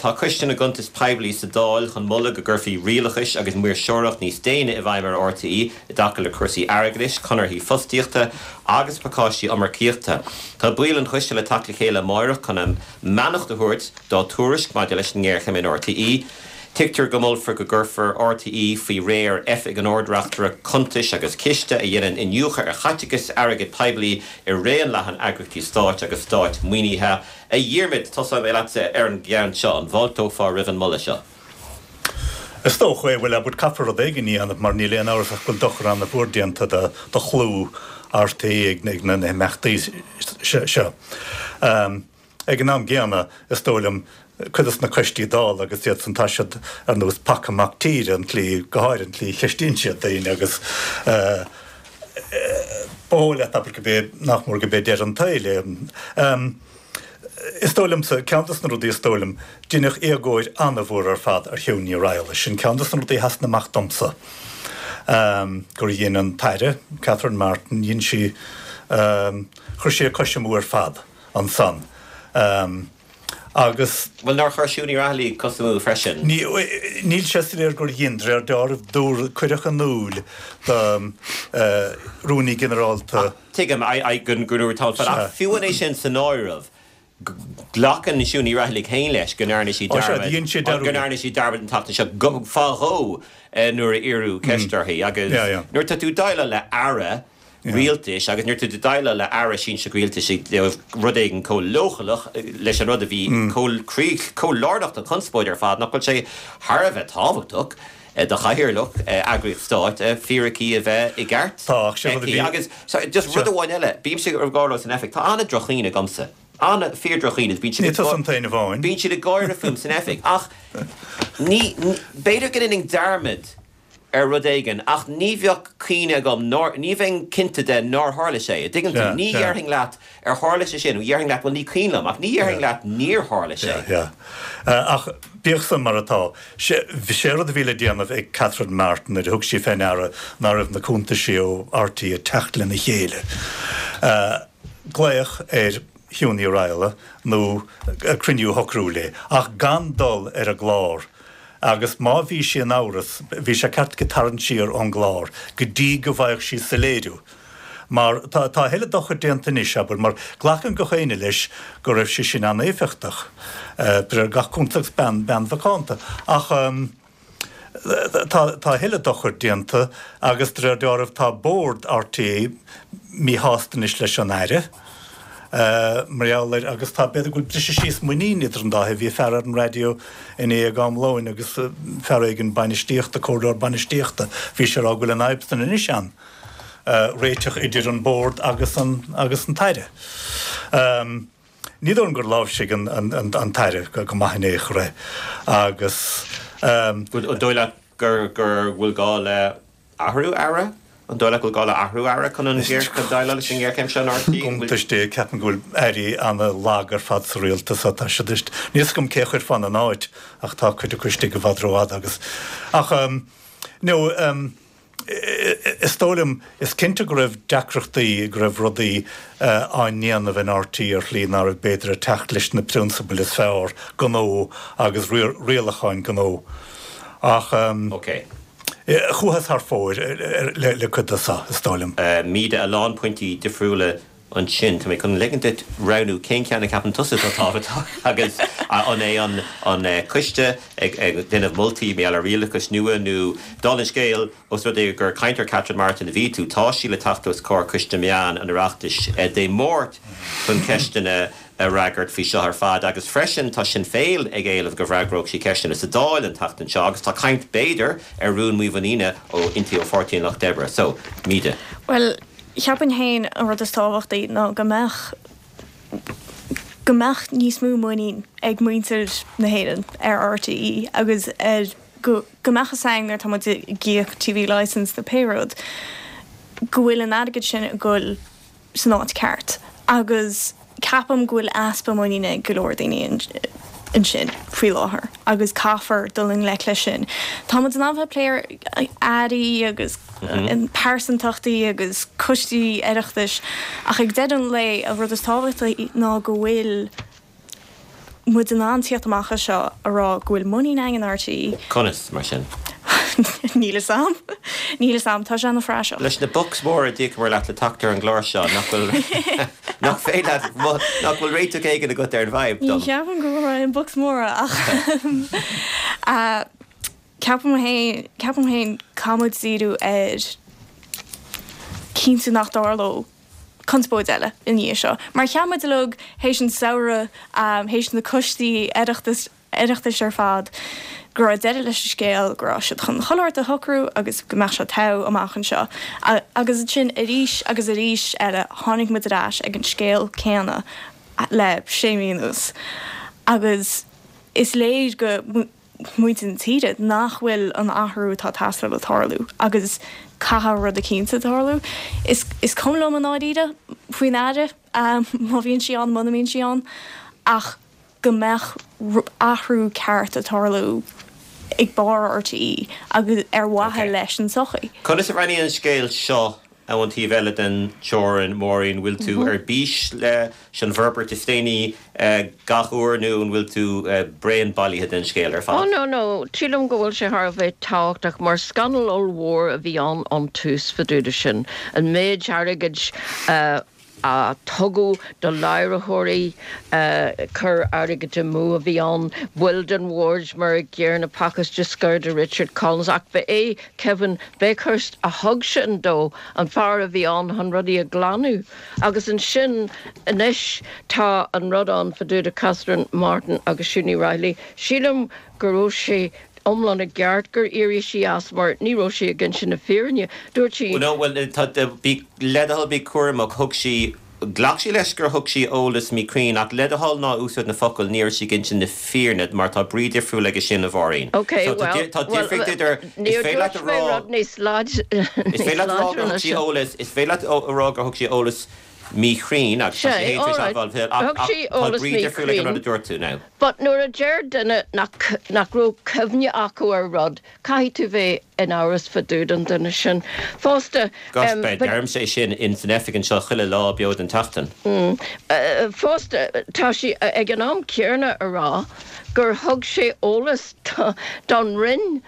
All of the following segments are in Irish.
Tá Coiste na gCuntas Poiblí sa Dáil chun moladh go gcuirfí rialachas agus maoirseoireacht níos déine i bhfeidhm ar RTÉ i dtaca le cúrsaí airgeadais, conarthaí fostaíochta agus pacáistí iomarcaíochta. Tá baill an choiste le teacht le chéile amáireach chun a mbeannacht a thabhairt dá dtuairisc maidir leis an ngéarchéim in RTÉ. Tuigtear go molfar go gcuirfear RTÉ faoi réir Oifig an Ard-Reachtaire Cuntais agus Ciste a dhéanann iniúchadh ar chaiteachas airgead poiblí i raon leathan eagraíochtaí stáit agus stát-mhaoinithe. A Dhiarmaid, tosóidh mé leatsa ar an gceann seo. An bhfáilteofá roimh an moladh seo? Is dócha é. Bhuel, abair, caithfear rud éigin a dhéanamh mar níl aon amhras ach go bhfuil dochar an-mhór déanta do chlú RTÉ ag na himeachtaí seo. Ag an am gcéanna, is dóigh liom, cuid de na coistí Dála agus iad san, tá siad ar nós paca mac tíre, an tslí, go háirithe an tslí a cheistíonn siad daoine agus ba dhóigh leat, abair, gurb é, nach mór gurb é deireadh an tsaoil é. Is dóigh liomsa, ceann de na rudaí is dóigh liom, deineadh éagóir an-mhór ar fad ar Shiún Ní Raghallaigh. Sin ceann de na rudaí a sheasann amach domsa, gur dhein an tAire, Catherine Martin, dhein sí, chuir sí a cois amú ar fad ansan. Agus. Bhuel, nár chuir Siún Ní Raghallaigh cos amú freisin? Níl sé soiléir gur dhein, de réir dealraimh, dúradh, cuireadh in iúl do Rúnaí Ginearálta. Tuigim, go ndúradh tamall fada, ach fiú amháin é sin san áireamh, glacann Siún Ní Raghallaigh féin leis go ndearna sí dearmad, go ndearna sí dearmad an tseachtain seo, go, fá dhó nuair a iarradh ceist uirthi agus nuair atá tú ag déileáil le Aire rialtais agus nuair atá tú ag déileáil le Aire sinsearach rialtais i dtaobh rud éigin chomh leochaileach leis an rud a bhí chomh chomh lárnach don chonspóid ar fad, nach bhfuil sé thar a bheith tábhachtach do chathaoirleach eagraíocht stáit fíricí a bheith i gceart aici. Agus just rud amháin eile, bímse ag rá leo san oifig, tá an-droch-chuimhne agamsa, an, fíor-droch-chuimhne, bíonn siad ag, bíonn siad ag gáire fúm san oifig ach ní, b'fhéidir go ndéanfainn dearmad ar rud éigin ach ní bheadh cuimhne agam nár, ní bheinn cinnte de nár tharla sé, a' dtuigeann tú? Ní dhéarfainn leat ar tharla sé sin, déarfainn leat bhuel ní cuimhin liom ach ní dhéarfainn leat níor tharla sé. Yeah, yeah. Ach bíodh san mar atá, sé, sé rud a bhí le déanamh ag Catherine Martin nuair a thug sí fé ndeara ná raibh na cuntaisí ó RTÉ ag teacht lena chéile, glaoch ar Shiún Ní Raghallaigh nó cruinniú a shocrú léi ach gan dul ar an gclár Agus má bhí sí in amhras, bhí sé ceart aici tarraingt siar ón gclár go dtí go bhfaigheadh sí soiléiriú. Mar tá a thuilleadh dochair déanta anois, abair, mar glacann gach éinne leis go raibh sí sin an-éifeachtach, de réir gach cuntas agus bean, bean mhacánta. Ach tá, tá a thuilleadh dochair déanta agus de réir dealraimh tá bord RTÉ míshásta anois leis an Aire. Mar gheall air, agus tá, b'fhéidir go bhfuil briseadh síos muiníne idir an dá thaobh. Bhí fear ar an raidió inné ag am lóin agus fear éigin bainistíochta, comhairleoir bainistíochta, bhí sé ag rá go bhfuil an fhadhb san anois ann, réiteach idir an bord agus an, agus an tAire. Ní dóigh liom gur láimhsigh an, an, an tAire go maith in aon chor é agus. An dóigh leat gur, gur bhfuil gá le Athrú Aire? An dóigh leat go bhfuil gá le athrú Aire chun an chun déileáil leis an ngéarchéim seo in RTÉ? Iontas Dé, ceapaim go bhfuil airí ana-lag ar fad sa rialtas tá siad níl fhios agam cé a chuirfeá ina n-áit ach tá cuid acu istigh i bhfad rófhada agus ach no is dóigh liom is cinnte go raibh deacrachtaí go raibh rudaí á ndéanamh in RTÉ ar shlí ná raibh b'fhéidir ag teacht leis na prionsabail is fearr gnó agus rialacháin gnó ach Ok. Chuathas thar fóir le cuid de seo, is dóigh liom. Míde, a lán pointí difriúla ansin. Tá mé chun ligean duit roghnú cén ceann a cheapann tusa atá tábhachtach agus an é an coiste ag déanamh moltaí mar gheall ar rialachas nua nó, dála an scéil, os rud é gur caint ar Catherine Martin a bhí tú, tá sí le teacht os comhair Coiste Meán an Oireachtais Dé Máirt chun ceisteanna a fhreagairt faoi seo ar fad agus freisin tá Sinn Féin ag éileamh go bhfreagródh sí ceisteanna sa Dáil an tseachtain seo agus tá caint b'fhéidir ar rún mímhuiníne ó inti ó Pháirtí an Lucht Oibre. So, Míde. Bhuel, cheapfainn féin an rud is tábhachtaí ná go mbeadh go mbeadh níos mó muinín ag muintir na hÉireann ar RTÉ agus ar go go mbeadh fhios againn nuair atá muid ag íoc TV licence nó pé rud go bhfuil an airgead sin ag goil san áit ceart agus ceapaim go bhfuil easpa muiníne ag go leor daoine ansin faoi láthair agus caithfear dul i ngleic leis sin. Tá muid in ann bheith ag plé ar airí agus pearsantachtaí agus coistí Oireachtais ach ag deireadh an lae an rud is tábhachtaí ná go bhfuil. muid in ann tíocht amach as seo a rá go bhfuil muinín againn in RTÉ. Conas, mar sin? Níl fhios a'm. Níl fhios a'm. Tá sé ana phraiseach. Leis na bucks móra a d'íocamar leat le teacht ar an gclár seo, nach bhfuil, nach féidir leat, nach bhfuil réiteach éigin agat ar an bhfadhb Ní dom? cheapaim go bhfuil aon bucks móra ach ceapaim féin, ceapaim féin caithfidh muid díriú ar cinntiú nach dtarlódh conspóid eile i ndiaidh seo. Mar cheap muid uilig théis an samhradh, théis na coistí Oireachtais, Oireachtais ar fad, go raibh deireadh leis an scéal, go raibh siad chun chuile shórt a shocrú agus go mbeadh sé togha amach anseo. Agus ansin arís agus arís eile tháinig muid ar ais ag an scéal céanna le sé mhí anuas. Agus is léir go. muintir na tíre nach bhfuil an athrú atá ag teastáil ag tarlú agus caithfidh rud eicínt tarlú. Is is cuma liom i ndáiríre faoin Aire má bhíonn sí ann muna mbíonn sí ann ach go mbeadh athrú ceart ag tarlú ag barr RTÉ agus ar mhaithe leis an tsochaí. Conas a bhreathnaíonn an scéal seo ón taobh eile den teorainn, Máirín, bhfuil tú ar bís leis an bhforbairt is déanaí gach uair nó an bhfuil tú bréan bailithe den scéal ar fad? Oh no, no, sílim go bhfuil sé thar a bheith tábhachtach mar scannal ollmhór a bhí ann ón tús fá dtaobh de sin. An méid airgid a a tugadh do láithreoirí, cur airgid amú a bhí ann, baill den bhord mar an gcéanna, pacáiste scoir do Richard Collins, ach ba é Kevin Bakhurst a thug sin dó, an fear a bhí ann chun rudaí a ghlanadh. Agus ansin anois tá an rud ann fá dtaobh de Catherine Martin agus Siún Ní Raghallaigh. Sílim go raibh sé iomlán i gceart gur éirigh sí as mar ní raibh sí ag inse na fírinne. Dúirt sí. No, bhuel, tá, bí, le do thoil, bí cúramach, thug sí, ghlac sí leis gur thug sí eolas míchruinn ach le do thoil ná úsáid na focail ní raibh sí ag inse na fírinne mar tá brí difriúil aige sin, a Mháirín. Ok, So tá, well, tá well, difríocht idir, is níor féidir leat a dúirt mé rá, rud níos láid, is níos féidir leat a rá láidre gur ná thug sí sin. eolas, is féidir leat a rá gur thug sí eolas míchruinn agus tá sí Sé, féin tar éis alright, admháil ach thug ach sí tá eolas brí difriúil ag an rud míchruinn. a dúirt tú now. But nuair a deir duine nach nach raibh cuimhne acu ar rud, caithfidh tú bheith in amhras fá dtaobh den duine sin. Fosta, Gosh, em, but. deirimse é sin in san oifig anseo chuile lá beo den tseachtain. Mm. Fosta, tá sí ag an am céanna a rá gur thug sé eolas don Roinn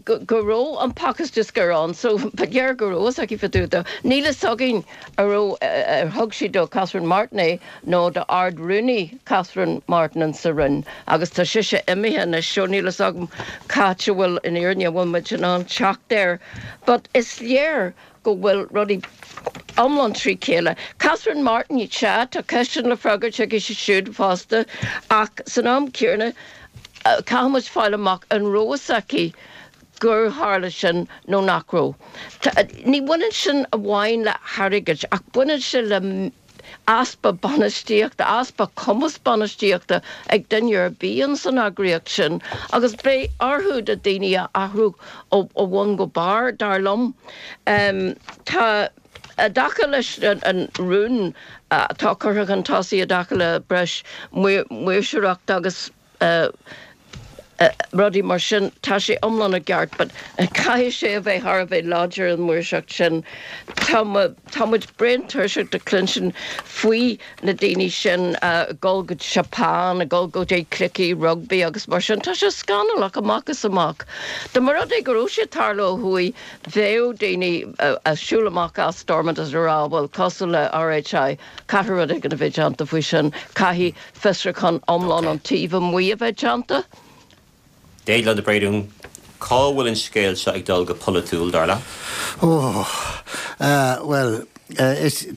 go go raibh an pacáiste scoir ann, so ba léir go raibh fhios aici fá dtaobh de. Níl fhios againn an raibh, ar thug sí do Catherine Martin é nó do Ard-Rúnaí Catherine Martin in sa Roinn agus tá sise imithe anois so níl fhios agam c'áit a bhfuil an fhírinne, an bhfuil muid in ann teacht air but is léir go bhfuil rudaí iomlán trí chéile. Catherine Martin, sea, tá ceisteanna le freagairt aici siúd fosta ach san am céanna caithfidh muid fáil amach an raibh fhios aici gur tharla sin nó nach raibh. Ní bhaineann sin amháin le hairgead ach baineann sé le easpa bainistíochta, easpa cumas bainistíochta ag duine ar bith ins an eagraíocht sin agus beidh orthu na daoine a athrú ó bhun go barr, dar liom. Tá i dtaca leis an rún atá curtha chun tosaigh i dtaca le breis maoirseoireachta agus rudaí mar sin, tá sé iomlán i gceart but caithfidh sé a bheith thar a bheith láidir an mhaoirseacht sin. Tá tá muid bréan tuirseach de cluinstin faoi na daoine sin ag dul go Japan, ag dul go dtí cluichí rugbaí agus mar sin. Tá sé scannalach amach is amach. Dá mba rud é go raibh sé ag tarlú ó thuaidh, bheadh daoine ag siúl amach as Stormont is ag rá bhuel cosúil le RHI, Caithfidh rud éigin a bheith déanta faoi sin. Caithfidh fiosrúchán iomlán ón taobh amuigh a bheith déanta. Déaglán de Bréadún, cá bhfuil an scéal seo ag dul go polaitiúil, dar leat? Ó, bhuel, is,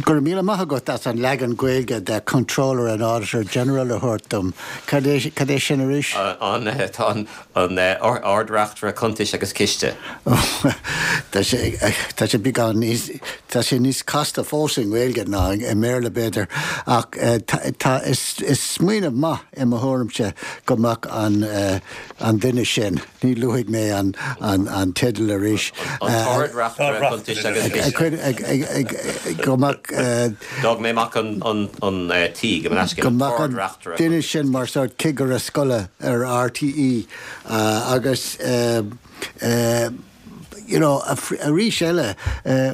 go raibh míle maith agat as an leagan Gaeilge de Comptroller and Auditor General a thabhairt dom. Cad é, cad é sin arís? An, tá an, An Ard-Reachtaire Cuntais agus Ciste. Tá sé, tá sé beagán níos, tá sé níos casta fós i nGaeilge ná i mBéarla b'fhéidir, ach tá, is, is smaoineamh maith i mo thuairimse go mbeadh an, an duine sin, ní luafaidh mé an, an, an teideal arís. An tArd-Reachtaire Cuntais agus Ciste. Go mbeadh. D'fhág mé amach an, an, an T, gabh mo leithscéal. Go mbeadh an duine sin mar sórt cigire scoile ar RTÉ agus. you know, arís eile,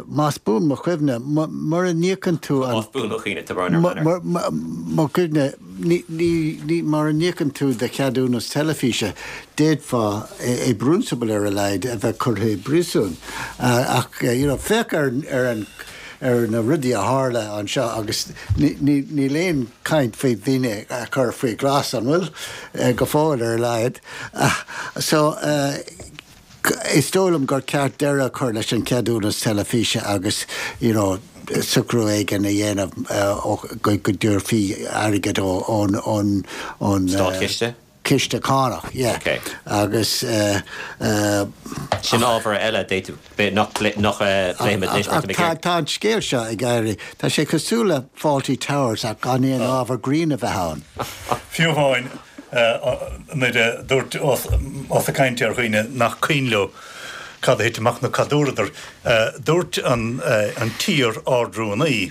más buan mo chuimhne, mura n-íocann tú an. Más buan do chuimhne, tá brón orm. Mo chuimhne, ní, mura n-íocann tú do cheadúnas teilifíse, d'fhéadfá, i bprionsabal ar a laghad, a bheith curtha i bpríosún. Ach, you know, féach ar an, ar na rudaí a tharla anseo agus níl aon chaint faoi dhaoine a chur faoi ghlas, an bhfuil? Go fóill ar a laghad. So, is dóigh liom gur ceart deireadh a chur leis an cheadúnas teilifíse agus, you know, socrú éigin a dhéanamh go dtabharfaí airgead ón, ón. Státchiste? Ciste cánach, yeah. Ok. Agus. Sin ábhar eile d'fhéadfadh, nach bpléifimid anois mar tá mé ag iarraidh. Tá an scéal seo ag éirí, tá sé cosúil le Fawlty Towers ach gan aon ábhar grinn a bheith ann. Fiú amháin nuair a dúirt, ós ag caint ar dhaoine nach cuimhin leo cad a thit amach nó cad a dúradar, dúirt an t-iar-Ard-Rúnaí,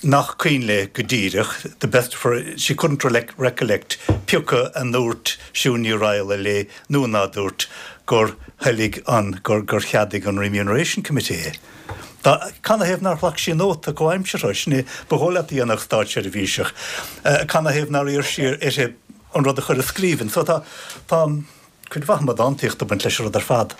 nach cuimhin léi go díreach, the best of her, she couldn't recollect pioca a ndúirt Siún Ní Raghallaigh léi nó ná dúirt gur thoiligh an, gur, gur cheadaigh an Remuneration Committee é. Dá, canathaobh nár ghlac sí nóta comhaimseartha, sin é ba dhóigh leat a dhéanfadh státseirbhíseach, canathaobh nár iarr sí uirthi an rud a chur i scríbhinn. So tá, tá cuid mhaith amadántaíochta ag baint leis an rud ar fad.